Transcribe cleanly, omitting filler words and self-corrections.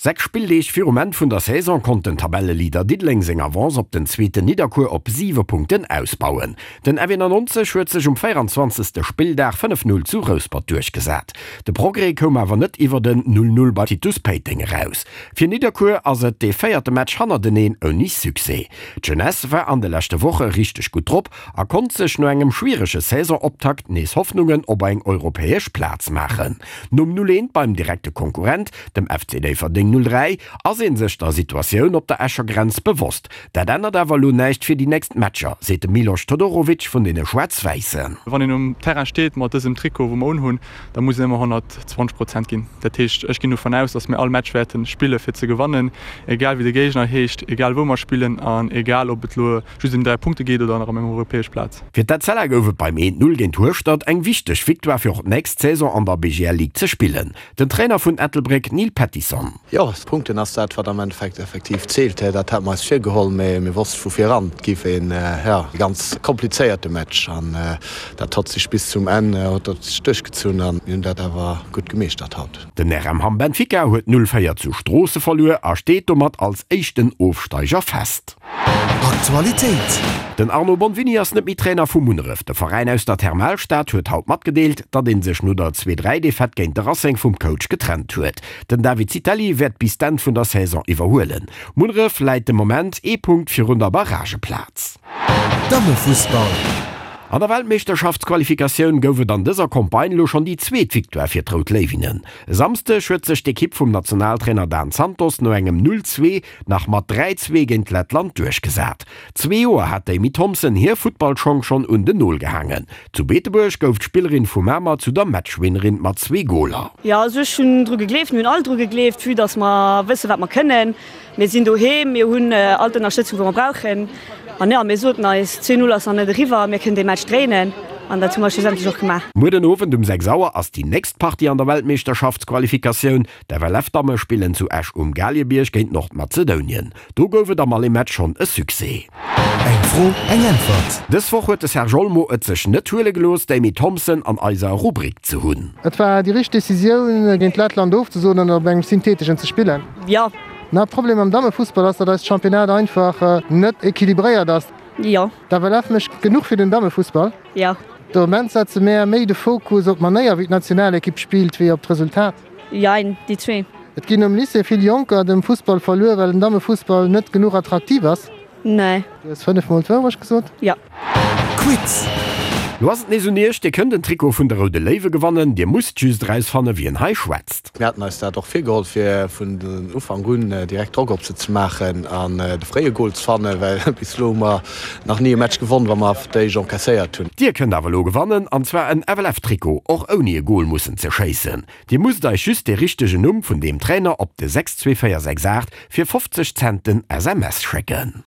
6 Spilldeeg virum Enn vun der Saison konnt den Tabelleleader Diddeleng seng Avance op den zweeten Nidderkuer op 7 Punkten ausbauen. Den FW 99 huet sech um 24. Spilldag 5, 0 zu Rouspert duerchgesat. De Progrès koum awer net iwwert en 0, 0 bei Titus Péiteng eraus. Fir Nidderkuer ass et dee véierte Match hannerteneen ouni Succès. D'Jeunesse war an de leschte Woche richteg gutt drop a konnt sech no engem schwierege Saisonoptakt nees Hoffnungen op eng europäesch Plaz maachen. Nom 0, 1 beim direkte Konkurrent, dem FC Déifferdeng 03, ass ee sech der Situatioun op der Escher Grenz bewosst. Dat ännert awer elo näischt fir déi nächst Matcher, seet de Milos Todorovic vun deene Schwaarz-Wäissen. Wann een um Terrain steet mat dësem Trikot, wou mer unhunn, da muss een ëmmer 120 Prozent ginn. Dat heescht, ech ginn dovun aus, datt mir all Match wäerte spille fir ze gewannen, egal wéi de Géigner heescht, egal wou mer spillen an egal ob et elo just ëm 3 Punkte geet oder nach ëm eng europäesch Plaz. Fir d'Etzella gouf et beim 1, 0 géint Hueschtert eng wichteg Victoire fir och d'nächst Saison an der BGL Ligue ze spillen. Den Trainer vun Ettelbréck Neil Pettison. Jo, Punkten ass dat wat am Endeffekt effektiv zielt. Dat hate mer eis virgeholl, mee mir wosste vu vir eran, et géif een, jo, ganz komplizéierte Match an dat hott sech bis zum Enn huet dat sech duerchgezunn an mir hunn dat awer gutt gemeeschtert haut. Den RM Hamm Benfica huet 0, 4 zu Stroosse verluer a steet domat als éischten Ofsteiger fest. Aktualitéit. Den Arno Bonvini ass net méi Trainer vu Munneref. De Veräin aus der Thermalstad huet haut matgedeelt, datt ee sech no der 2, 3 Defaite géint de Racing vum Coach getrennt huet. Den David Zitelli wäert bis d'Enn vun der Saison iwwerhuelen. Munneref läit de Moment ee Punkt virun der Barrageplaz. Dammefussball. An der Weltmeeschterschaftsqualifikatioun gouf et an dëser Campagne elo schonn déi zweet Victoire fir d'Rout Léiwinnen. E Samsdeg huet sech d'Ekipp vum Nationaltrainer Dan Santos no engem 0, 2 nach mat 3, 2 géint Lettland duerchgesat. Zwee Joer hat d'Amy Thompson hir Futtballschong schonn un den Nol gehaangen. Zu Beetebuerg gouf d'Spillerin vu Mamer zu der Matchwinnerin mat zwee Goler. Jo, also ech hunn dru gegleeft, mir hunn all dru gegleeft, vue dass mer wësse wat mer kënnen. Mir sinn doheem, mir hunn all d'Ënnerstëtzung wou mer brauchen an jo, mir soten eis, 2, 0 ass nach net eriwwer, mir kënnen dee Match dréinen an dat hu mer schlussendlech och gemaach. Muer den Owend um 6 Auer ass déi nächst Partie an der Weltmeeschterschaftsqualifikatioun. D'FLF-Damme spillen zu Esch um Galiebierg géint Nordmazedounien. Do gouf et am Aller-Match schonn e Succès. Eng Fro, eng Äntwert. Dës Woch huet de Serge Olmo et sech net huele gelooss, d'Amy Thompson an eiser Rubrik ze hunn. Et war déi richteg Decisioun, géint Lettland ofzesoen an op engem syntheteschen ze spillen. Jo. Den Haaptproblem am Dammefussball ass, datt eist Championnat einfach net equilibréiert ass. Jo. D'FLF mécht genuch fir den Dammefussball. Jo. De Moment setze mär méi de Fokus op d'Manéier wéi d'Nationalekipp spillt, wéi op d'Resultat. Jein, déi zwee. Et ginn um Lycée vill Jonker dem Fussball verluer, well den Dammefussball net genuch attraktiv ass. Nee. Du hues 5 mol d'Wourecht gesot. Jo. Quiz. Lo ass et nees un iech, Dir kënnt en Trikot vun de Roude Léiwe gewannen. Dir musst just erausfanne wien hei schwätzt. Mir haten eis dat och virgeholl fir vun Ufank un direkt Drock op se ze maachen an de fréie Gol ze fannen, well bis elo hu mer nach ni e Match gewonn, wa mer d'éischt encaisséiert hunn. Dir kënnt awer elo gewannen, an zwar en FLF-Trikot, och ouni e Gol mussen ze schéissen. Dir musst eis just de richtegen Numm vun deem Trainer op de 62468 fir 50 Cent den SMS schécken.